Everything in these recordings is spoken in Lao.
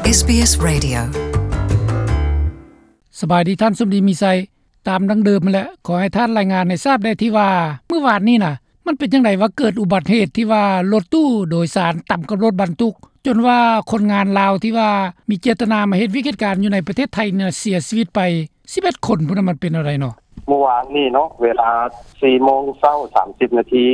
ເອສບີເອສ Radio. ສະບາຍດີທ່ານສົມດີມີໄຊ. ຕາມດັ່ງເດີມຫັ້ນແຫຼະ, ຂໍໃຫ້ທ່ານລາຍງານໃຫ້ຊາບແດ່ທີ່ວ່າ ມື້ວານນີ້ນະ ມັນເປັນຈັ່ງໃດວ່າເກີດອຸບັດເຫດທີ່ວ່າລົດຕູ້ໂດຍສານຕຳກັບລົດບັນທຸກ ຈົນວ່າຄົນງານລາວທີ່ວ່າມີເຈດຕະນາມາເຮັດວຽກເຮັດການຢູ່ໃນປະເທດໄທນີ້ນະ ເສຍຊີວິດໄປສິບເອັດຄົນພຸ້ນນະ, ມັນເປັນແນວໃດເນາະ? ມື້ວານນີ້ເນາະ ເວລາສີ່ໂມງເຊົ້າສາມສິບນາທີ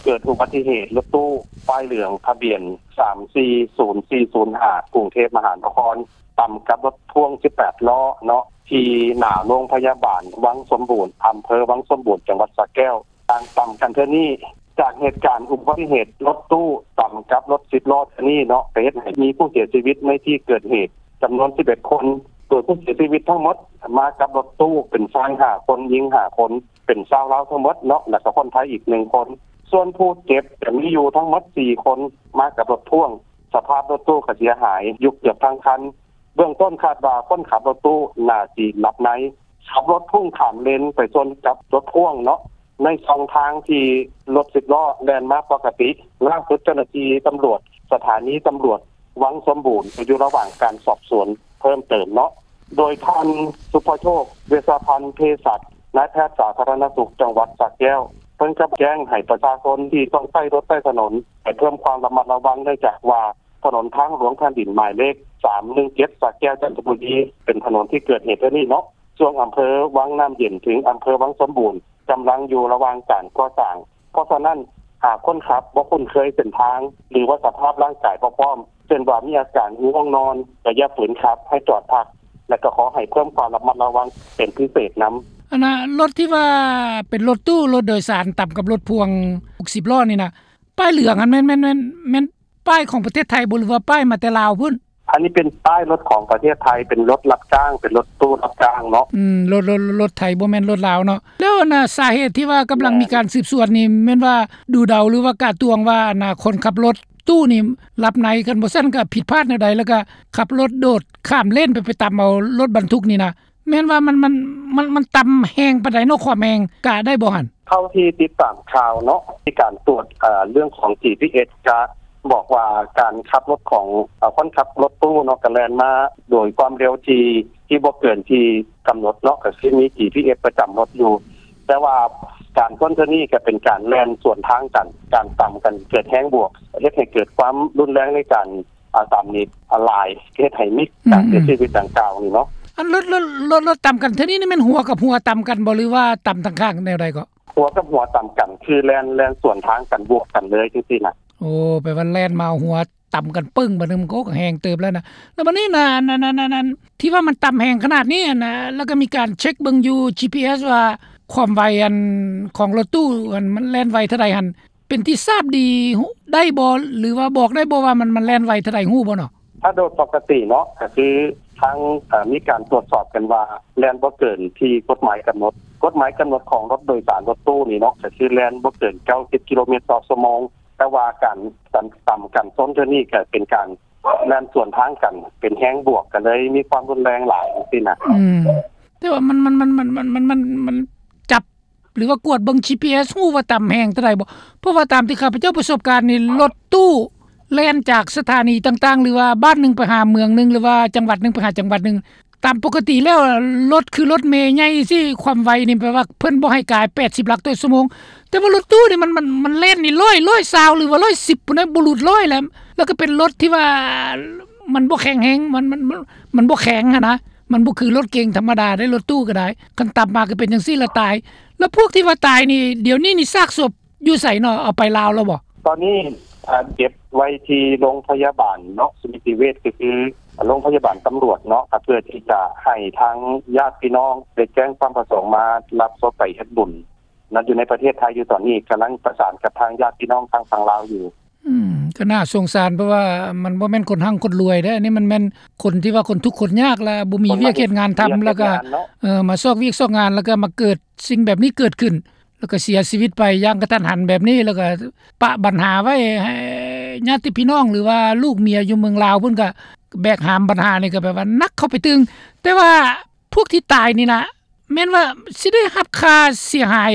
ເກີດອຸບັດຕິເຫດລົດຕູ້ປ້າຍເຫຼືອງ ທະບຽນສາມສີ່ສູນສີ່ສູນຫ້າ ກຸງເທບມະຫານະຄອນ ຕຳກັບລົດພ່ວງສິບແປດລໍ້ເນາະ ທີ່ໜ້າໂຮງພະຍາບານວັງສົມບູນ ອຳເພີວັງສົມບູນ ຈັງຫວັດສະແກ້ວ. ການຕຳກັນເທື່ອນີ້ ຈາກເຫດການອຸບັດຕິເຫດລົດຕູ້ຕຳກັບລົດສິບລໍ້ເທື່ອນີ້ເນາະ ກໍເຮັດໃຫ້ມີຜູ້ເສຍຊີວິດໃນທີ່ເກີດເຫດຈຳນວນສິບເອັດຄົນ, ໂດຍຜູ້ເສຍຊີວິດທັງໝົດມາກັບລົດຕູ້ເປັນຊາຍຫ້າຄົນ, ຍິງຫ້າຄົນ, ເປັນຊາວລາວທັງໝົດເນາະ ແລ້ວກໍຄົນໄທອີກໜຶ່ງຄົນ. ສ່ວນຜູ້ເຈັບຈະມີຢູ່ທັງໝົດສີ່ຄົນ ມາກັບລົດພ່ວງ. ສະພາບລົດຕູ້ກໍເສຍຫາຍຢູ່ເກືອບທັງຄັນ. ເບື້ອງຕົ້ນຄາດວ່າຄົນຂັບລົດຕູ້ໜ້າຊິຫຼັບໃນ ຂັບລົດພຸ່ງຂ້າມເລນໄປຊົນກັບລົດພ່ວງເນາະ ໃນຊ່ອງທາງທີ່ລົດສິບລໍ້ແລ່ນມາປົກກະຕິ. ລ່າສຸດເຈົ້າໜ້າທີ່ຕຳຫຼວດສະຖານີຕຳຫຼວດວັງສົມບູນ ກໍຢູ່ລະຫວ່າງການສອບສວນເພີ່ມເຕີມເນາະ. ໂດຍທ່ານ ສຸພະໂຊກ ເວຊະພັນ ເພສັດ ນາຍແພດສາທາລະນະສຸກຈັງຫວັດສະແກ້ວ ເພິ່ນກໍແຈ້ງໃຫ້ປະຊາຊົນທີ່ຕ້ອງໃຊ້ລົດໃຊ້ຖະໜົນ ໃຫ້ເພີ່ມຄວາມລະມັດລະວັງ ເນື່ອງຈາກວ່າ ຖະໜົນທາງຫຼວງແຜ່ນດິນໝາຍເລກສາມໜຶ່ງເຈັດ ສະແກ້ວ ຈັນທະບູລີ ເປັນຖະໜົນທີ່ເກີດເຫດເທື່ອນີ້ເນາະ ຊ່ວງອຳເພີວັງນ້ຳເຢັນເຖິງອຳເພີວັງສົມບູນ ກຳລັງຢູ່ລະຫວ່າງການກໍ່ສ້າງ. ເພາະສະນັ້ນ ຫາກຄົນຂັບບໍ່ຄຸ້ນເຄີຍເສັ້ນທາງ ຫຼືວ່າສະພາບຮ່າງກາຍບໍ່ພ້ອມ ເຊັ່ນວ່າມີອາການງ່ວງນອນ ກໍຢ່າຝືນຂັບ ໃຫ້ຈອດພັກ ແລະ ກໍຂໍໃຫ້ເພີ່ມຄວາມລະມັດລະວັງເປັນພິເສດນຳ. ອັນນ່າ ລົດທີ່ວ່າເປັນລົດຕູ້ ລົດໂດຍສານຕຳກັບລົດພ່ວງຫົກສິບລໍ້ນີ້ນະ ປ້າຍເຫຼືອງຫັ້ນແມ່ນ ແມ່ນ ແມ່ນ ແມ່ນປ້າຍຂອງປະເທດໄທບໍ່ ຫຼືວ່າປ້າຍມາແຕ່ລາວພຸ້ນ? ອັນນີ້ເປັນປ້າຍລົດຂອງປະເທດໄທ ເປັນລົດຮັບຈ້າງ ເປັນລົດຕູ້ຮັບຈ້າງເນາະ. ອືມ ລົດ ລົດ ລົດໄທ ບໍ່ແມ່ນລົດລາວເນາະ. ແລ້ວອັນນ່າ ສາເຫດທີ່ວ່າກຳລັງມີການສືບສວນນີ້ ແມ່ນວ່າດູເດົາ ຫຼືວ່າກະຕວງວ່າອັນນ່າ ຄົນຂັບລົດຕູ້ນີ້ຫຼັບໃນ ຄັນບໍ່ຊັ້ນກໍຜິດພາດແນວໃດ ແລ້ວກໍຂັບລົດໂດດຂ້າມເລນໄປ ໄປຕຳເອົາລົດບັນທຸກນີ້ນະ ແມ່ນວ່າມັນ ມັນ ມັນ ມັນຕຳແຮງປານໃດເນາະ ຄວາມແຮງ ກະໄດ້ບໍ່ຫັ້ນ? ເທົ່າທີ່ຕິດຕາມຂ່າວເນາະ ມີການຕວດ ເອີ ເລື່ອງຂອງ ຈີພີເອສ ກະບອກວ່າການຂັບລົດຂອງ ເອີ ຄົນຂັບລົດຕູ້ເນາະ ກະແລ່ນມາໂດຍຄວາມເລັວທີ່ ທີ່ບໍ່ເກີນທີ່ກຳນົດເນາະ ກະຄືມີ ຈີພີເອສ ປະຈຳລົດຢູ່. ແຕ່ວ່າການຊົນເທື່ອນີ້ກະເປັນການແລ່ນສວນທາງກັນ ການຕຳກັນເກີດແຮງບວກ ເຮັດໃຫ້ເກີດຄວາມຮຸນແຮງໃນການ ອາ ຕຳນີ້ຫຼາຍ ເຮັດໃຫ້ມີການເສຍຊີວິດດັ່ງກ່າວນີ້ເນາະ. ອັນລົດ ລົດ ລົດ ລົດຕຳກັນເທື່ອນີ້ນີ້ແມ່ນຫົວກັບຫົວຕຳກັນບໍ່ ຫຼືວ່າຕຳທາງຂ້າງແນວໃດເກາະ? ຫົວກັບຫົວຕຳກັນ ຄືແລ່ນ ແລ່ນສວນທາງກັນ ບວກກັນເລີຍຈັ່ງຊີ້ນະ. ໂອ້ ແປວ່າແລ່ນມາເອົາຫົວຕຳກັນປຶ້ງ ບາດນີ້ມັນກໍແຮງເຕີບແລ້ວນະ. ແລ້ວບາດນີ້ນະ ອັນ ອັນ ອັນ ອັນ ທີ່ວ່າມັນຕຳແຮງຂະໜາດນີ້ຫັ້ນນະ ແລ້ວກໍມີການເຊັກເບິ່ງຢູ່ ຈີພີເອສ ວ່າຄວາມໄວ ອັນ ຂອງລົດຕູ້ ອັນ ມັນແລ່ນໄວເທົ່າໃດຫັ້ນ ເປັນທີ່ຊາບດີໄດ້ບໍ່ ຫຼືວ່າບອກໄດ້ບໍ່ວ່າມັນ ມັນແລ່ນໄວເທົ່າໃດ ຮູ້ບໍ່ເນາະ? ຖ້າໂດຍປົກກະຕິເນາະ ກະຄືທາງ ເອີ ມີການຕວດສອບກັນວ່າ ແລ່ນບໍ່ເກີນທີ່ກົດໝາຍກຳນົດ. ກົດໝາຍກຳນົດຂອງລົດໂດຍສານລົດຕູ້ນີ້ເນາະ ກະຄືແລ່ນບໍ່ເກີນເກົ້າສິບກິໂລແມັດຕໍ່ຊົ່ວໂມງ. ແຕ່ວ່າການ ການຕຳກັນຊົນເທື່ອນີ້ ກະເປັນການແລ່ນສວນທາງກັນ ເປັນແຮງບວກ ກະເລີຍມີຄວາມຮຸນແຮງຫຼາຍຈັ່ງຊີ້ນະ. ອືມ ແຕ່ວ່າມັນ ມັນ ມັນ ຈັບ ຫຼືວ່າກວດເບິ່ງ ຈີພີເອສ ຮູ້ວ່າຕຳແຮງເທົ່າໃດບໍ່? ເພາະວ່າຕາມທີ່ຂ້າພະເຈົ້າປະສົບການນີ້ ລົດຕູ້ແລ່ນຈາກສະຖານີຕ່າງໆ ຫຼືວ່າບ້ານໜຶ່ງໄປຫາເມືອງໜຶ່ງ ຫຼືວ່າຈັງຫວັດໜຶ່ງໄປຫາຈັງຫວັດໜຶ່ງ ຕາມປົກກະຕິແລ້ວ ລົດຄືລົດເມໃຫຍ່ຊີ້ ຄວາມໄວນີ້ແປວ່າເພິ່ນບໍ່ໃຫ້ກາຍແປດສິບຫຼັກຕໍ່ຊົ່ວໂມງ. ແຕ່ວ່າລົດຕູ້ນີ້ມັນ ມັນ ມັນແລ່ນນີ້ຮ້ອຍ ຮ້ອຍຊາວ ຫຼືວ່າຮ້ອຍສິບພຸ້ນນະ ບໍ່ຫຼຸດຮ້ອຍແລ້ວ. ແລ້ວກໍເປັນລົດທີ່ວ່າມັນບໍ່ແຂງແຮງ ມັນ ມັນ ມັນ ມັນບໍ່ແຂງຫັ້ນນະ. ມັນບໍ່ຄືລົດເກັງທຳມະດາເດ້ ລົດຕູ້ກໍໄດ້ ຄັນຕຳມາກໍເປັນຈັ່ງຊີ້ລະຕາຍ. ແລ້ວພວກທີ່ວ່າຕາຍນີ້ ດຽວນີ້ນີ້ຊາກສົບຢູ່ໃສເນາະ? ເອົາໄປລາວແລ້ວບໍ່? ຕອນນີ້ ອາ ເກັບໄວ້ທີ່ໂຮງພະຍາບານເນາະ ສະມິຕິເວດ ກໍຄືໂຮງພະຍາບານຕຳຫຼວດເນາະ ເພື່ອທີ່ຈະໃຫ້ທາງຍາດພີ່ນ້ອງໄດ້ແຈ້ງຄວາມປະສົງມາຮັບສົບໄປເຮັດບຸນນະ ຢູ່ໃນປະເທດໄທຢູ່ຕອນນີ້ ກຳລັງປະສານກັບທາງຍາດພີ່ນ້ອງທາງຝັ່ງລາວຢູ່. ອືມ ກໍໜ້າສົງສານ ເພາະວ່າມັນບໍ່ແມ່ນຄົນຮັ່ງຄົນລວຍເດ້ ອັນນີ້ມັນແມ່ນຄົນທີ່ວ່າຄົນທຸກຄົນຍາກ ແລະ ບໍ່ມີວຽກເຮັດງານທຳ ແລ້ວກໍ ເອີ ມາຊອກວຽກຊອກງານ ແລ້ວກໍມາເກີດສິ່ງແບບນີ້ເກີດຂຶ້ນ ແລ້ວກໍເສຍຊີວິດໄປຢ່າງກະທັນຫັນແບບນີ້ ແລ້ວກໍປະບັນຫາໄວ້ໃຫ້ຍາດຕິພີ່ນ້ອງ ຫຼືວ່າລູກເມຍຢູ່ເມືອງລາວ ເພິ່ນກໍແບກຫາມບັນຫານີ້ ກໍແບບວ່າໜັກເຂົ້າໄປຕື່ມ. ແຕ່ວ່າພວກທີ່ຕາຍນີ້ນະ ແມ່ນວ່າຊິໄດ້ຮັບຄ່າເສຍຫາຍ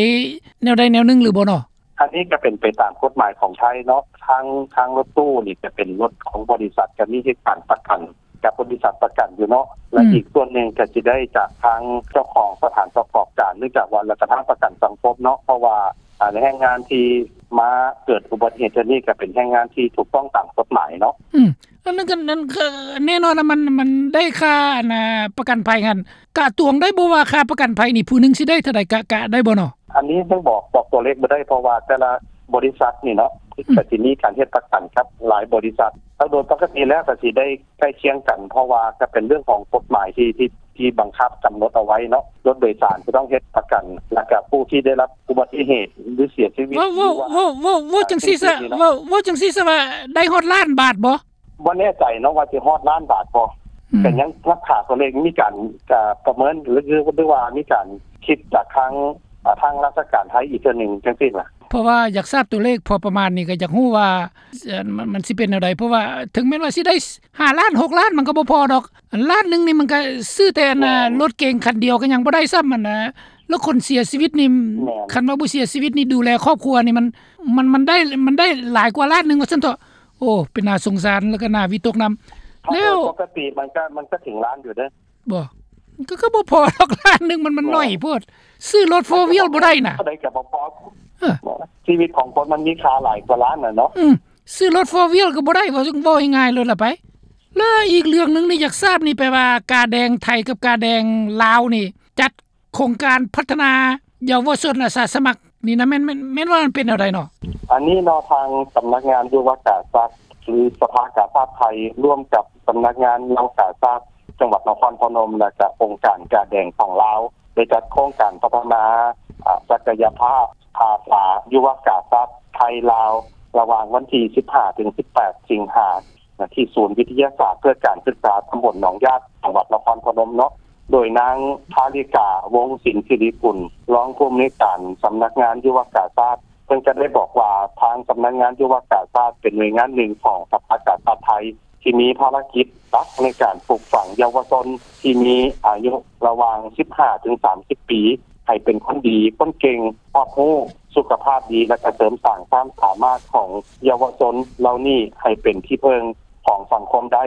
ແນວໃດແນວໜຶ່ງຫຼືບໍ່ເນາະ? ອັນນີ້ກໍເປັນໄປຕາມກົດໝາຍຂອງໄທເນາະ ທາງ ທາງລົດຕູ້ນີ້ກໍເປັນລົດຂອງບໍລິສັດ ກໍມີເຮັດການປະກັນ ກັບບໍລິສັດປະກັນຢູ່ເນາະ ແລະ ອືມ ອີກສ່ວນໜຶ່ງກໍຊິໄດ້ຈາກທາງເຈົ້າຂອງສະຖານປະກອບການ ເນື່ອງຈາກວ່າລາວກໍທາງປະກັນສັງຄົມເນາະ ເພາະວ່າ ອ່າ ແຮງງານທີ່ມາເກີດອຸບັດຕິເຫດເທື່ອນີ້ ກໍເປັນແຮງງານທີ່ຖືກຕ້ອງຕາມກົດໝາຍເນາະ. ອືມ ອັນນັ້ນກໍ ນັ້ນກໍແນ່ນອນນະ ມັນ ມັນໄດ້ຄ່າ ອັນນ່າ ປະກັນໄພຫັ້ນ ກະຕວງໄດ້ບໍ່ວ່າຄ່າປະກັນໄພນີ້ ຜູ້ໜຶ່ງຊິໄດ້ເທົ່າໃດ ກະ ກະໄດ້ບໍ່ເນາະ? ອັນນີ້ຍັງບອກ ບອກຕົວເລກບໍ່ໄດ້ ເພາະວ່າແຕ່ລະບໍລິສັດນີ້ເນາະ ອືມ ກໍຊິມີການເຮັດປະກັນກັບຫຼາຍບໍລິສັດ ແລ້ວໂດຍປົກກະຕິແລ້ວກໍຊິໄດ້ໃກ້ຄຽງກັນ ເພາະວ່າກໍເປັນເລື່ອງຂອງກົດໝາຍທີ່ ທີ່ ທີ່ບັງຄັບກຳນົດເອົາໄວ້ເນາະ ລົດໂດຍສານຈະຕ້ອງເຮັດປະກັນ ແລ້ວກໍຜູ້ທີ່ໄດ້ຮັບອຸບັດຕິເຫດ ຫຼື ເສຍຊີວິດ ເວົ້າ ເວົ້າ ເວົ້າ ເວົ້າ ເວົ້າຈັ່ງຊີ້ຊະ ເວົ້າ ເວົ້າຈັ່ງຊີ້ຊະວ່າໄດ້ຮອດລ້ານບາດບໍ່? ບໍ່ແນ່ໃຈເນາະວ່າຊິຮອດລ້ານບາດບໍ່ ອືມ ກໍຍັງຮັກສາຕົວເລກ ມີການ ກະປະເມີນ ຫຼື ຫຼືວ່າມີການຄິດຈາກທາງ ອາ ທາງລາຊະການໄທອີກເທື່ອໜຶ່ງຈັ່ງຊີ້ນະ ເພາະວ່າຢາກຊາບຕົວເລກພໍປະມານນີ້ ກໍຢາກຮູ້ວ່າ ເອີ ມັນ ມັນຊິເປັນແນວໃດ ເພາະວ່າເຖິງແມ່ນວ່າຊິໄດ້ຫ້າລ້ານ ຫົກລ້ານ ມັນກໍບໍ່ພໍດອກ ອັນລ້ານໜຶ່ງນີ້ມັນກໍຊື້ແຕ່ອັນນ່າ ແມ່ນ ລົດເກັງຄັນດຽວກໍຍັງບໍ່ໄດ້ຊ້ຳ ອັນນ່າ ແລ້ວຄົນເສຍຊີວິດນີ້ ແມ່ນ ຄັນວ່າບໍ່ເສຍຊີວິດນີ້ ດູແລຄອບຄົວນີ້ ມັນ ມັນ ມັນໄດ້ ມັນໄດ້ຫຼາຍກວ່າລ້ານໜຶ່ງວ່າຊັ້ນເຖາະ. ໂອ້ ເປັນໜ້າສົງສານ ແລ້ວກໍໜ້າວິຕົກນຳ. ແລ້ວປົກກະຕິມັນກໍ ມັນກໍເຖິງລ້ານຢູ່ເດ້. ບໍ່ ກໍ ກໍບໍ່ພໍດອກ ລ້ານໜຶ່ງມັນ ມັນ ບໍ່ ໜ້ອຍໂພດ. ຊື້ລົດໂຟວີວບໍ່ໄດ້ນະ ເທົ່າໃດກໍບໍ່ພໍ. ເອີ ຊີວິດຂອງຄົນມັນມີຄ່າຫຼາຍກວ່າລ້ານນະເນາະ. ອືມ ຊື້ລົດໂຟວີວກໍບໍ່ໄດ້ ເວົ້າ ເວົ້າງ່າຍໆໂລດລະໄປ. ແລ້ວອີກເລື່ອງໜຶ່ງນີ້ ຢາກຊາບນີ້ ແປວ່າກາແດງໄທກັບກາແດງລາວນີ້ ຈັດ ໂຄງການພັດທະນາເຍົາວະຊົນອາສາສະໝັກນີ້ນະ ແມ່ນ ແມ່ນ ແມ່ນວ່າມັນເປັນແນວໃດເນາະ? ອັນນີ້ເນາະ ທາງສຳນັກງານຍຸວະກາຊາດ ຫຼື ສະພາກາຊາດໄທ ຮ່ວມກັບສຳນັກງານເຍົາວະກາຊາດຈັງຫວັດນະຄອນພະນົມ ແລະ ກະອົງການກາແດງຂອງລາວ ໄດ້ຈັດໂຄງການພັດທະນາ ອາ ສັກກະຍະພາບພາສາຍຸວະກາຊາດໄທລາວ ລະຫວ່າງວັນທີສິບຫ້າ ເຖິງ ສິບແປດ ສິງຫາ ນະ ທີ່ສູນວິທະຍາສາດເພື່ອການສຶກສາຕຳບົນໜອງຍາດ ຈັງຫວັດນະຄອນພະນົມເນາະ ໂດຍນາງ ທາລິກາ ວົງສິນສິລິກຸນ ຮອງຜູ້ອຳນວຍການສຳນັກງານຍຸວະກາຊາດ ເພິ່ນກໍໄດ້ບອກວ່າ ທາງສຳນັກງານຍຸວະກາຊາດເປັນໜ່ວຍງານໜຶ່ງຂອງສະພາກາຊາດໄທ ທີ່ມີພາລະກິດຫຼັກໃນການປູກຝັງເຍົາວະຊົນທີ່ມີອາຍຸລະຫວ່າງສິບຫ້າ ເຖິງ ສາມສິບປີ ໃຫ້ເປັນຄົນດີ ຄົນເກັ່ງ ຮອບຮູ້ ສຸຂະພາບດີ ແລະ ກະເສີມສ້າງຄວາມສາມາດຂອງເຍົາວະຊົນເຫຼົ່ານີ້ໃຫ້ເປັນທີ່ເພິ່ງຂອງສັງຄົມໄດ້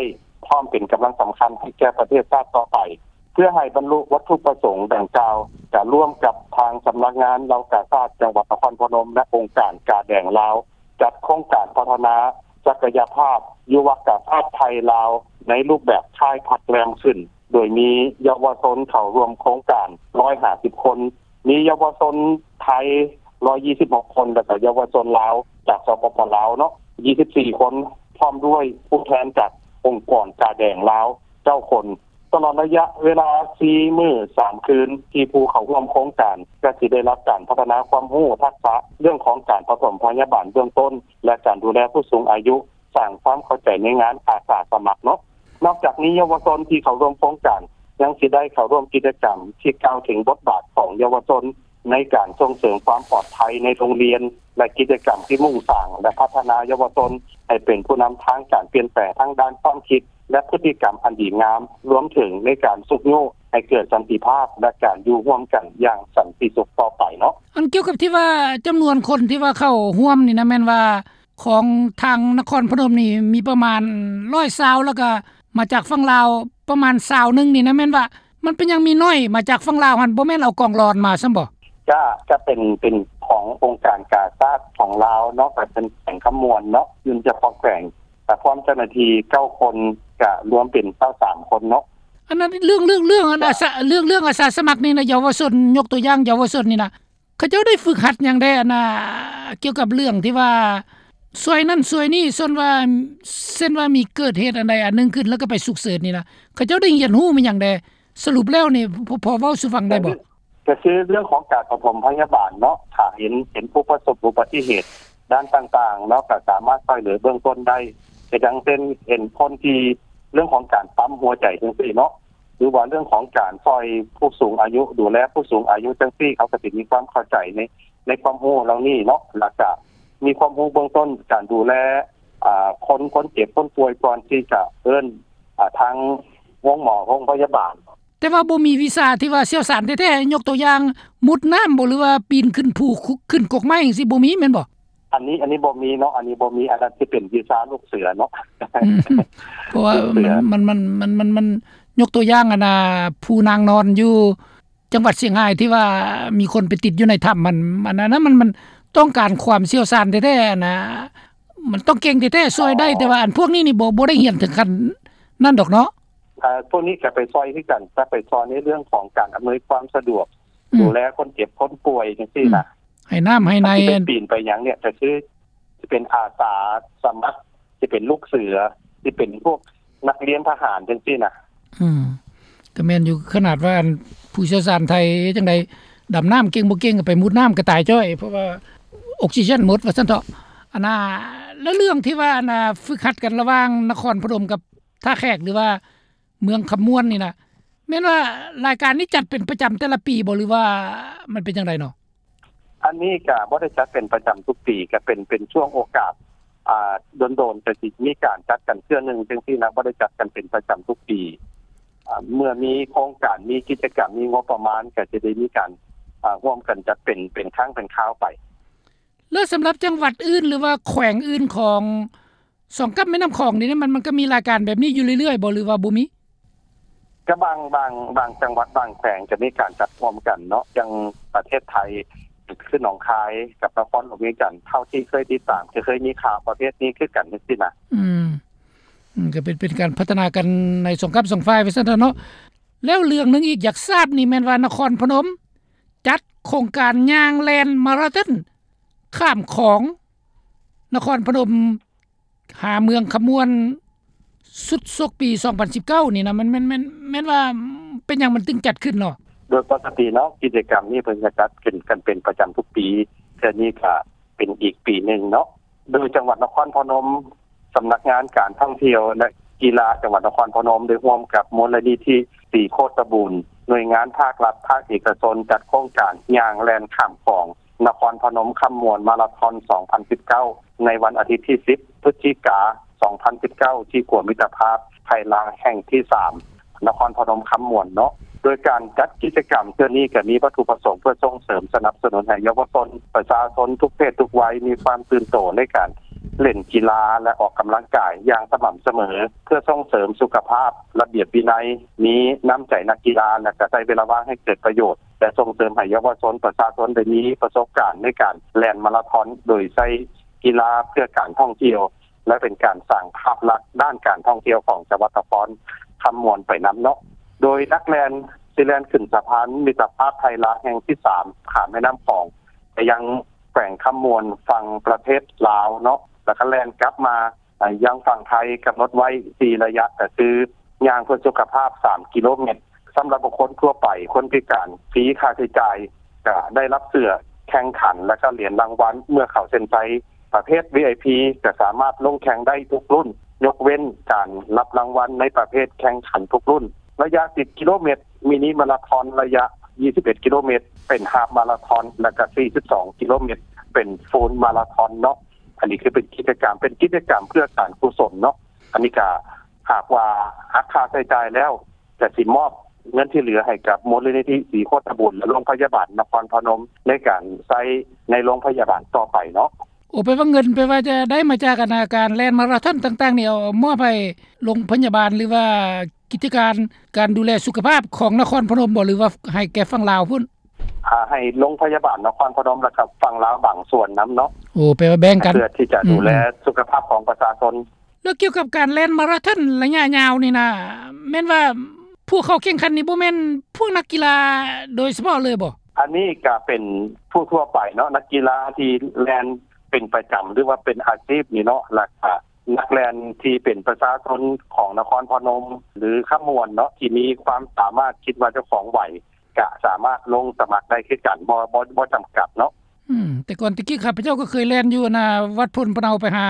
ພ້ອມເປັນກຳລັງສຳຄັນໃຫ້ແກ່ປະເທດຊາດຕໍ່ໄປ. ເພື່ອໃຫ້ບັນລຸວັດຖຸປະສົງດັ່ງກ່າວ ກະຮ່ວມກັບທາງສຳນັກງານເຍົາວະກາຊາດຈັງຫວັດນະຄອນພະນົມ ແລະ ອົງການກາແດງລາວ ຈັດໂຄງການພັດທະນາສັກກະຍະພາບຍຸວະກາຊາດໄທລາວ ໃນຮູບແບບຄ້າຍພັກແລມຂຶ້ນ ໂດຍມີເຍົາວະຊົນເຂົ້າຮ່ວມໂຄງການຮ້ອຍຫ້າສິບຄົນ, ມີເຍົາວະຊົນໄທຮ້ອຍຊາວຫົກຄົນ ແລະ ກະເຍົາວະຊົນລາວຈາກ ສປປ ລາວເນາະ ຊາວສີ່ຄົນ ພ້ອມດ້ວຍຜູ້ແທນຈາກອົງກອນກາແດງລາວເກົ້າຄົນ. ຕະຫຼອດໄລຍະເວລາສີ່ມື້ສາມຄືນ ທີ່ຜູ້ເຂົ້າຮ່ວມໂຄງການກະຊິໄດ້ຮັບການພັດທະນາຄວາມຮູ້ທັກສະເລື່ອງຂອງການປະຖົມພະຍາບານເບື້ອງຕົ້ນ ແລະ ການດູແລຜູ້ສູງອາຍຸ, ສ້າງຄວາມເຂົ້າໃຈໃນງານອາສາສະໝັກເນາະ. ນອກຈາກນີ້ ເຍົາວະຊົນທີ່ເຂົ້າຮ່ວມໂຄງການຍັງຊິໄດ້ເຂົ້າຮ່ວມກິດຈະກຳທີ່ກ່າວເຖິງບົດບາດຂອງເຍົາວະຊົນໃນການສົ່ງເສີມຄວາມປອດໄພໃນໂຮງຮຽນ ແລະ ກິດຈະກຳທີ່ມຸ່ງສ້າງ ແລະ ພັດທະນາເຍົາວະຊົນໃຫ້ເປັນຜູ້ນຳທາງການປ່ຽນແປງທາງດ້ານຄວາມຄິດ ແລະ ພຶດຕິກຳອັນດີງາມ, ລວມເຖິງໃນການຊຸກຍູ້ໃຫ້ເກີດສັນຕິພາບ ແລະ ການຢູ່ຮ່ວມກັນຢ່າງສັນຕິສຸກຕໍ່ໄປເນາະ. ອັນກ່ຽວກັບທີ່ວ່າຈຳນວນຄົນທີ່ວ່າເຂົ້າຮ່ວມນີ້ນະ ແມ່ນວ່າຂອງທາງນະຄອນພະນົມນີ້ມີປະມານຮ້ອຍຊາວ ແລ້ວກະມາຈາກຝັ່ງລາວປະມານຊາວໜຶ່ງນີ້ນະ ແມ່ນວ່າມັນເປັນຫຍັງມີໜ້ອຍມາຈາກຝັ່ງລາວຫັ້ນ ບໍ່ແມ່ນເອົາກອງຫຼອນມາຊັ້ນບໍ? ກະ ກະເປັນ ເປັນຂອງອົງການກາຊາດຂອງລາວເນາະ ກະເປັນແຂວງຄຳມ່ວນເນາະ ຢູ່ສະເພາະແຂວງ ກະພ້ອມເຈົ້າໜ້າທີ່ເກົ້າຄົນ ກະລວມເປັນຊາວສາມຄົນເນາະ. ອັນນັ້ນເລື່ອງ ເລື່ອງ ເລື່ອງອັນອາສາ ເລື່ອງ ເລື່ອງອາສາສະໝັກນີ້ນະ ເຍົາວະຊົນ ຍົກຕົວຢ່າງເຍົາວະຊົນນີ້ນະ ເຂົາເຈົ້າໄດ້ຝຶກຫັດຫຍັງແດ່ ອັນນ່າ ກ່ຽວກັບເລື່ອງທີ່ວ່າຊ່ວຍນັ້ນຊ່ວຍນີ້ ສ່ວນວ່າ ເຊັ່ນວ່າມີເກີດເຫດອັນໃດອັນໜຶ່ງຂຶ້ນ ແລ້ວກໍໄປສຸກເສີນນີ້ນະ ເຂົາເຈົ້າໄດ້ຮຽນຮູ້ມາຫຍັງແດ່? ສະຫຼຸບແລ້ວນີ້ ພໍ ພໍເວົ້າສູ່ຟັງໄດ້ບໍ່? ກໍຄືເລື່ອງຂອງການປະຖົມພະຍາບານເນາະ ຖ້າເຫັນ ເຫັນຜູ້ປະສົບອຸບັດຕິເຫດດ້ານຕ່າງໆເນາະ ກໍສາມາດຊ່ວຍເຫຼືອເບື້ອງຕົ້ນໄດ້ ກໍຢ່າງເຊັ່ນ ເຫັນຄົນທີ່ ເລື່ອງຂອງການປ້ຳຫົວໃຈຈັ່ງຊີ້ເນາະ ຫຼືວ່າເລື່ອງຂອງການຊ່ອຍຜູ້ສູງອາຍຸ ດູແລຜູ້ສູງອາຍຸຈັ່ງຊີ້ ເຂົາກໍຊິມີຄວາມເຂົ້າໃຈໃນ ໃນຄວາມຮູ້ເຫຼົ່ານີ້ເນາະ ແລ້ວກະມີຄວາມຮູ້ເບື້ອງຕົ້ນການດູແລ ອາ ຄົນ ຄົນເຈັບຄົນປ່ວຍ ກ່ອນທີ່ຈະເອີ້ນ ອາ ທາງໂຮງໝໍໂຮງພະຍາບານ. ແຕ່ວ່າບໍ່ມີວິຊາທີ່ວ່າຊ່ຽວຊານແທ້ໆ ຍົກຕົວຢ່າງມຸດນ້ຳບໍ ຫຼືວ່າປີນຂຶ້ນພູ ຂຶ້ນກົກໄມ້ຈັ່ງຊີ້ ບໍ່ມີແມ່ນບໍ່? ອັນນີ້ ອັນນີ້ບໍ່ມີເນາະ ອັນນີ້ບໍ່ມີ ອັນນັ້ນຊິເປັນວິຊາລູກເສືອເນາະ. ອືມ ເພາະວ່າ ເສືອ ມັນ ມັນ ມັນ ມັນ ມັນ ມັນ ຍົກຕົວຢ່າງ ອັນນ່າ ຜູ້ນາງນອນຢູ່ ຈັງຫວັດຊຽງຮາຍທີ່ວ່າມີຄົນໄປຕິດຢູ່ໃນຖ້ຳ ມັນ ອັນນັ້ນນະ ມັນ ມັນຕ້ອງການຄວາມຊ່ຽວຊານແທ້ໆ ອັນນ່າ ມັນຕ້ອງເກັ່ງແທ້ໆ ຊ່ວຍໄດ້ ອໍ ແຕ່ວ່າອັນພວກນີ້ນີ້ບໍ່ ບໍ່ໄດ້ຮຽນເຖິງຂັ້ນນັ້ນດອກເນາະ. ເອີ ພວກນີ້ກໍໄປຊ່ອຍຄືກັນ ກໍໄປຊ່ອຍໃນເລື່ອງຂອງການອຳນວຍຄວາມສະດວກ ອືມ ດູແລຄົນເຈັບຄົນປ່ວຍຈັ່ງຊີ້ນະ ອືມ ໃຫ້ນ້ຳໃຫ້ໃນ ຄັນຊິໄປປີນໄປຫຍັງນີ້ ກໍຄືຊິເປັນອາສາສະໝັກ ຊິເປັນລູກເສືອ ຊິເປັນພວກນັກຮຽນທະຫານຈັ່ງຊີ້ນະ. ອືມ ກໍແມ່ນຢູ່ ຂະໜາດວ່າອັນຜູ້ຊ່ຽວຊານໄທຈັ່ງໃດ ດຳນ້ຳເກັ່ງບໍ່ເກັ່ງ ກໍໄປມຸດນ້ຳກໍຕາຍຈ້ອຍ ເພາະວ່າອົກຊີເຈນໝົດວ່າຊັ້ນເຖາະ. ອັນນ່າ ແລ້ວເລື່ອງທີ່ວ່າ ອັນນ່າ ຝຶກຫັດກັນລະຫວ່າງນະຄອນພະນົມກັບທ່າແຂກ ຫຼືວ່າເມືອງຄຳມ່ວນນີ້ນະ ແມ່ນວ່າລາຍການນີ້ຈັດເປັນປະຈຳແຕ່ລະປີບໍ່ ຫຼືວ່າມັນເປັນຈັ່ງໃດເນາະ? ອັນນີ້ກະບໍ່ໄດ້ຈັດເປັນປະຈຳທຸກປີ ກະເປັນ ເປັນຊ່ວງໂອກາດ ອ່າ ດົນໆ ຈະຊິມີການຈັດກັນເທື່ອໜຶ່ງຈັ່ງຊີ້ນະ ບໍ່ໄດ້ຈັດກັນເປັນປະຈຳທຸກປີ. ອ່າ ເມື່ອມີໂຄງການ ມີກິດຈະກຳ ມີງົບປະມານ ກະຈະໄດ້ມີການ ອ່າ ຮ່ວມກັນຈັດເປັນ ເປັນຄັ້ງເປັນຄາວໄປ. ແລ້ວສຳລັບຈັງຫວັດອື່ນ ຫຼືວ່າແຂວງອື່ນຂອງ ສອງກັບແມ່ນ້ຳຂອງນີ້ ມັນ ມັນກໍມີລາຍການແບບນີ້ຢູ່ເລື້ອຍໆບໍ່ ຫຼືວ່າບໍ່ມີ? ກໍບາງ ບາງ ບາງຈັງຫວັດ ບາງແຂວງກໍມີການຈັດຮ່ວມກັນເນາະ ຢ່າງປະເທດໄທ ຄືໜອງຄາຍກັບນະຄອນຫຼວງວຽງຈັນ ເທົ່າທີ່ເຄີຍຕິດຕາມ ກໍເຄີຍມີຂ່າວປະເພດນີ້ຄືກັນຈັ່ງຊີ້ນະ. ອືມ ອືມ ກໍເປັນ ເປັນການພັດທະນາກັນໃນສອງກັບສອງຝ່າຍວ່າຊັ້ນເຖາະເນາະ. ແລ້ວເລື່ອງໜຶ່ງອີກຢາກຊາບນີ້ແມ່ນວ່ານະຄອນພະນົມຈັດໂຄງການຍ່າງແລ່ນມາຣາທອນຂ້າມຂອງນະຄອນພະນົມ ຫາເມືອງຄຳມ່ວນ ສຸດສົກປີສອງພັນສິບເກົ້ານີ້ນະ ມັນ ແມ່ນ ແມ່ນ ແມ່ນວ່າເປັນຫຍັງມັນຈຶ່ງຈັດຂຶ້ນເນາະ? ໂດຍປົກກະຕິເນາະ ກິດຈະກຳນີ້ເພິ່ນຈະຈັດຂຶ້ນກັນເປັນປະຈຳທຸກປີ ເທື່ອນີ້ກະເປັນອີກປີໜຶ່ງເນາະ. ໂດຍຈັງຫວັດນະຄອນພະນົມ ສຳນັກງານການທ່ອງທ່ຽວ ແລະ ກິລາຈັງຫວັດນະຄອນພະນົມ ໄດ້ຮ່ວມກັບມູນນິທິສີໂຄດຕະບູນ ໜ່ວຍງານພາກລັດ ພາກເອກະຊົນ ຈັດໂຄງການຍ່າງແລ່ນຂ້າມຂອງ ນະຄອນພະນົມຄຳມ່ວນມາຣາທອນສອງພັນສິບເກົ້າ ໃນວັນອາທິດທີສິບ ພຶດສະຈິກາ ສອງພັນສິບເກົ້າ ທີ່ຂົວມິດຕະພາບໄທລາວແຫ່ງທີສາມ ນະຄອນພະນົມຄຳມ່ວນເນາະ. ໂດຍການຈັດກິດຈະກຳເທື່ອນີ້ກໍມີວັດຖຸປະສົງເພື່ອສົ່ງເສີມສະໜັບສະໜູນໃຫ້ເຍົາວະຊົນ ປະຊາຊົນທຸກເພດທຸກໄວ ມີຄວາມຕື່ນໂຕໃນການ ເລ່ນກິລາ ແລະ ອອກກຳລັງກາຍຢ່າງສະໝ່ຳສະເໝີ ເພື່ອສົ່ງເສີມສຸຂະພາບ ລະບຽບວິໄນ ມີນ້ຳໃຈນັກກິລາ ແລະ ກະໃຊ້ເວລາວ່າງໃຫ້ເກີດປະໂຫຍດ ແລະ ສົ່ງເສີມໃຫ້ເຍົາວະຊົນ ປະຊາຊົນໄດ້ມີປະສົບການໃນການແລ່ນມາຣາທອນ ໂດຍໃຊ້ກິລາເພື່ອການທ່ອງທ່ຽວ ແລະ ເປັນການສ້າງພາບລັກດ້ານການທ່ອງທ່ຽວຂອງຈັງຫວັດນະຄອນຄຳມ່ວນໄປນຳເນາະ. ໂດຍນັກແລ່ນຊິແລ່ນຂຶ້ນສະພານມິດຕະພາບໄທລາວແຫ່ງທີສາມ ຂ້າມແມ່ນ້ຳຂອງ ໄປຍັງແຂວງຄຳມ່ວນຝັ່ງປະເທດລາວເນາະ ແລ້ວກໍແລ່ນກັບມາ ອາ ຍັງຝັ່ງໄທ ກຳນົດໄວ້ສີ່ໄລຍະ ກໍຄືຍ່າງເພື່ອສຸຂະພາບສາມກິໂລແມັດ ສຳລັບບຸກຄົນທົ່ວໄປ ຄົນພິການ ຟຣີຄ່າໃຊ້ຈ່າຍ ກະໄດ້ຮັບເສື້ອແຂ່ງຂັນ ແລະ ກະຫຼຽນລາງວັນເມື່ອເຂົ້າເສັ້ນໄຊ. ປະເພດ ວີໄອພີ ກະສາມາດລົງແຂ່ງໄດ້ທຸກລຸ້ນ ຍົກເວັ້ນການຮັບລາງວັນໃນປະເພດແຂ່ງຂັນທຸກລຸ້ນ. ໄລຍະສິບກິໂລແມັດ ມິນິມາຣາທອນ ໄລຍະຊາວເອັດກິໂລແມັດ ເປັນຮາບມາຣາທອນ ແລະ ກະສີ່ສິບສອງກິໂລແມັດ ເປັນຟູລມາຣາທອນເນາະ. ອັນນີ້ຄືເປັນກິດຈະກຳ ເປັນກິດຈະກຳເພື່ອການກຸສົນເນາະ. ອັນນີ້ກະຫາກວ່າຫັກຄ່າໃຊ້ຈ່າຍແລ້ວ ກະຊິມອບເງິນທີ່ເຫຼືອໃຫ້ກັບມູນນິທິສີໂຄດຕະບູນ ແລະ ໂລງພະຍາບານນະຄອນພະນົມ ໃນການໃຊ້ໃນໂລງພະຍາບານຕໍ່ໄປເນາະ. ໂອ ແປວ່າເງິນ ແປວ່າຈະໄດ້ມາຈາກ ອັນ ການແລ່ນມາຣາທອນຕ່າງໆນີ້ ເອົາມອບໃຫ້ໂລງພະຍາບານ ຫຼືວ່າກິດຈະການ ການດູແລສຸຂະພາບຂອງນະຄອນພະນົມບໍ່ ຫຼືວ່າໃຫ້ແກ່ຝັ່ງລາວພຸ້ນ? ອ່າ ໃຫ້ໂລງພະຍາບານນະຄອນພະນົມ ແລ້ວກໍຝັ່ງລາວບາງສ່ວນນຳເນາະ. ໂອ ແປວ່າແບ່ງກັນ ເພື່ອທີ່ຈະດູແລ ອືມ ສຸຂະພາບຂອງປະຊາຊົນ. ແລ້ວກ່ຽວກັບການແລ່ນມາຣາທອນໄລຍະຍາວນີ້ນະ ແມ່ນວ່າຜູ້ເຂົ້າແຂ່ງຂັນນີ້ບໍ່ແມ່ນພວກນັກກິລາໂດຍສະເພາະເລີຍບໍ່? ອັນນີ້ກະເປັນຜູ້ທົ່ວໄປເນາະ ນັກກິລາທີ່ແລ່ນເປັນປະຈຳ ຫຼືວ່າເປັນອາຊີບນີ້ເນາະ ແລ້ວກະນັກແລ່ນທີ່ເປັນປະຊາຊົນຂອງນະຄອນພະນົມ ຫຼື ຄຳມ່ວນເນາະ ທີ່ມີຄວາມສາມາດ ຄິດວ່າເຈົ້າຂອງໄຫວ ກະສາມາດລົງສະໝັກໄດ້ຄືກັນ ບໍ່ ບໍ່ ບໍ່ຈຳກັດເນາະ. ອືມ ແຕ່ກ່ອນແຕ່ກີ້ຂ້າພະເຈົ້າກໍເຄີຍແລ່ນຢູ່ ອັນນ່າ ວັດໂພນພະເນົາໄປຫາ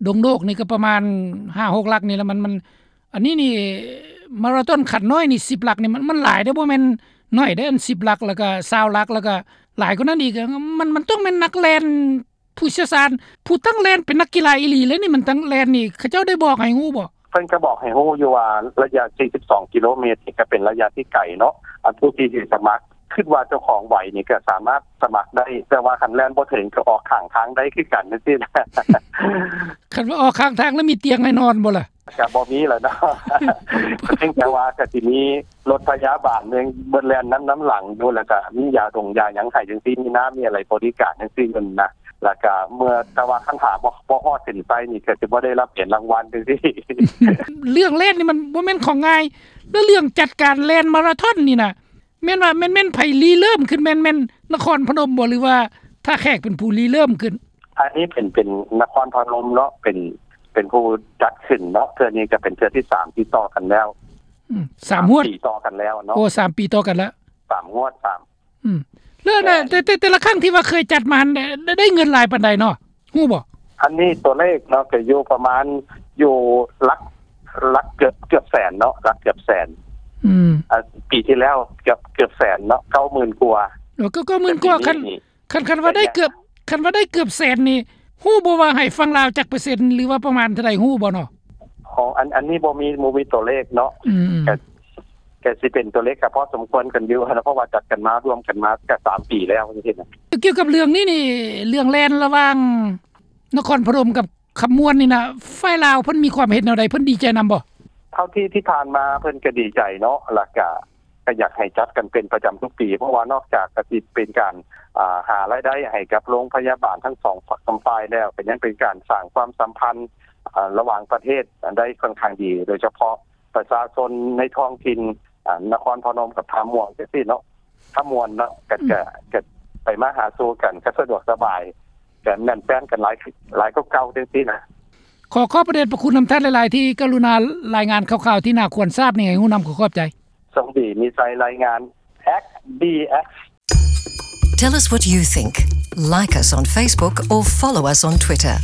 ດົງໂດກນີ້ກໍປະມານຫ້າຫົກຫຼັກນີ້ລະ ມັນ ມັນ ອັນນີ້ນີ້ມາຣາທອນຂັ້ນນ້ອຍນີ້ສິບຫຼັກນີ້ ມັນ ມັນຫຼາຍເດ້ ບໍ່ແມ່ນໜ້ອຍເດ້ ອັນສິບຫຼັກ ແລ້ວກໍຊາວຫຼັກ ແລ້ວກໍຫຼາຍກວ່ານັ້ນອີກ ມັນ ມັນຕ້ອງແມ່ນນັກແລ່ນ ຜູ້ຊ່ຽວຊານ ຜູ້ຕັ້ງແລ່ນເປັນນັກກິລາອີ່ຫຼີເລີຍນີ້ ມັນຕັ້ງແລ່ນນີ້ ເຂົາເຈົ້າໄດ້ບອກໃຫ້ຮູ້ບໍ່? ເພິ່ນກໍບອກໃຫ້ຮູ້ຢູ່ວ່າໄລຍະສີ່ສິບສອງກິໂລແມັດນີ້ກໍເປັນໄລຍະທີ່ໄກເນາະ ອັນຜູ້ທີ່ຊິສະໝັກ ຄິດວ່າເຈົ້າຂອງໄຫວນີ້ກໍສາມາດສະໝັກໄດ້ ແຕ່ວ່າຄັນແລ່ນບໍ່ເຖິງກໍອອກຂ້າງທາງໄດ້ຄືກັນຈັ່ງຊີ້ນະ. ຂ ວ່າອອກຂ້າງທາງແລ້ວມີຕຽງໃຫ້ນອນບໍ່ລະ? ກໍບໍ່ມີແລ້ວເນາະ ກໍເພຽງແຕ່ວ່າກໍຊິມີລົດພະຍາບານເບິ່ງ ເບິ່ງແລ່ນນຳ ນຳຫຼັງຢູ່ ແລ້ວກໍມີຢາດົງຢາຫຍັງໃຫ້ຈັ່ງຊີ້ ມີນ້ຳມີອະໄລບໍລິການຈັ່ງຊີ້ຢູ່ນະ ແລ້ວກໍເມື່ອ ແຕ່ວ່າຄັນຖ້າບໍ່ ບໍ່ຮອດເສັ້ນໄຊນີ້ ກໍຊິບໍ່ໄດ້ຮັບເຫຍນລາງວັນຈັ່ງຊີ້. ເລື່ອງແລ່ນນີ້ມັນບໍ່ແມ່ນຂອງງ່າຍ ແລ້ວເລື່ອງຈັດການແລ່ນມາລາທອນນີ້ນະ ແມ່ນວ່າ ແມ່ນ ແມ່ນໃຜລິເລີ່ມຂຶ້ນ ແມ່ນ ແມ່ນນະຄອນພະນົມບໍ່ ຫຼືວ່າທ່າແຂກເປັນຜູ້ລິເລີ່ມຂຶ້ນ? ອັນນີ້ເປັນ ເປັນນະຄອນພະນົມເນາະ ເປັນ ເປັນຜູ້ຈັດຂຶ້ນເນາະ ເທື່ອນີ້ກໍເປັນເທື່ອທີສາມຕິດຕໍ່ກັນແລ້ວ. ອືມ ສາມງວດ ສາມປີຕໍ່ກັນແລ້ວເນາະ. ໂອ້ ສາມປີຕໍ່ກັນແລ້ວ ສາມງວດ ສາມ ອືມ ແລ້ວນະ ແມ່ນ ແຕ່ ແຕ່ ແຕ່ລະຄັ້ງທີ່ວ່າເຄີຍຈັດມາຫັ້ນ ໄດ້ ໄດ້ເງິນຫຼາຍປານໃດເນາະ ຮູ້ບໍ່? ອັນນີ້ຕົວເລກເນາະ ກໍຢູ່ປະມານ ຢູ່ຫຼັກ ຫຼັກເກືອບ ເກືອບແສນເນາະ ຫຼັກເກືອບແສນ. ອືມ ອ່າ ປີທີ່ແລ້ວເກືອບ ເກືອບແສນເນາະ ເກົ້າໝື່ນກວ່າ. ໂອ້ ກໍ ເກົ້າໝື່ນກວ່າ. ຄັນ ຄັນ ຄັນວ່າໄດ້ເກືອບ ຄັນວ່າໄດ້ເກືອບແສນນີ້ ຮູ້ບໍ່ວ່າໃຫ້ຝັ່ງລາວຈັກເປີເຊັນ ຫຼືວ່າປະມານເທົ່າໃດ ຮູ້ບໍ່ເນາະ? ອໍ ອັນ ອັນນີ້ບໍ່ມີ ບໍ່ມີຕົວເລກເນາະ. ອືມ ກໍ ກໍຊິເປັນຕົວເລກກໍພໍສົມຄວນກັນຢູ່ນະ ເພາະວ່າຈັດກັນມາ ລວມກັນມາກໍສາມປີແລ້ວຈັ່ງຊີ້ນະ. ກ່ຽວກັບເລື່ອງນີ້ນີ້ ເລື່ອງແລ່ນລະຫວ່າງນະຄອນພະນົມກັບຄຳມ່ວນນີ້ນະ ຝ່າຍລາວເພິ່ນມີຄວາມເຫັນແນວໃດ? ເພິ່ນດີໃຈນຳບໍ່? ເທົ່າທີ່ ທີ່ຜ່ານມາເພິ່ນກໍດີໃຈເນາະ ແລ້ວກໍ ກໍຢາກໃຫ້ຈັດກັນເປັນປະຈຳທຸກປີ ເພາະວ່ານອກຈາກກະຊິເປັນການ ອ່າ ຫາລາຍໄດ້ໃຫ້ກັບໂຮງພະຍາບານທັງສອງ ສອງຝ່າຍແລ້ວ ກໍຍັງເປັນການສ້າງຄວາມສຳພັນ ອ່າ ລະຫວ່າງປະເທດໄດ້ຄ່ອນຂ້າງດີ ໂດຍສະເພາະປະຊາຊົນໃນທ້ອງຖິ່ນ ອ່າ ນະຄອນພະນົມກັບທ່າມ່ວງຈັ່ງຊີ້ເນາະ ທ່າມ່ວນເນາະ ກໍ ອືມ ກໍ ກໍໄປມາຫາສູ່ກັນ ກໍສະດວກສະບາຍ ກໍແໜ້ນແຟ້ນກັນຫຼາຍ ຫຼາຍກວ່າເກົ່າຈັ່ງຊີ້ນະ. ຂໍຂອບພະເດດພະຄຸນນຳທ່ານຫຼາຍໆ ທີ່ກະລຸນາລາຍງານຂ່າວໆ ທີ່ໜ້າຄວນຊາບນີ້ໃຫ້ຮູ້ນຳ. ຂໍຂອບໃຈ. ສົມດີ ມີໄຊ ລາຍງານ ເອັກ ບີ ເອັກ. Tell us what you think. Like us on Facebook or follow us on Twitter.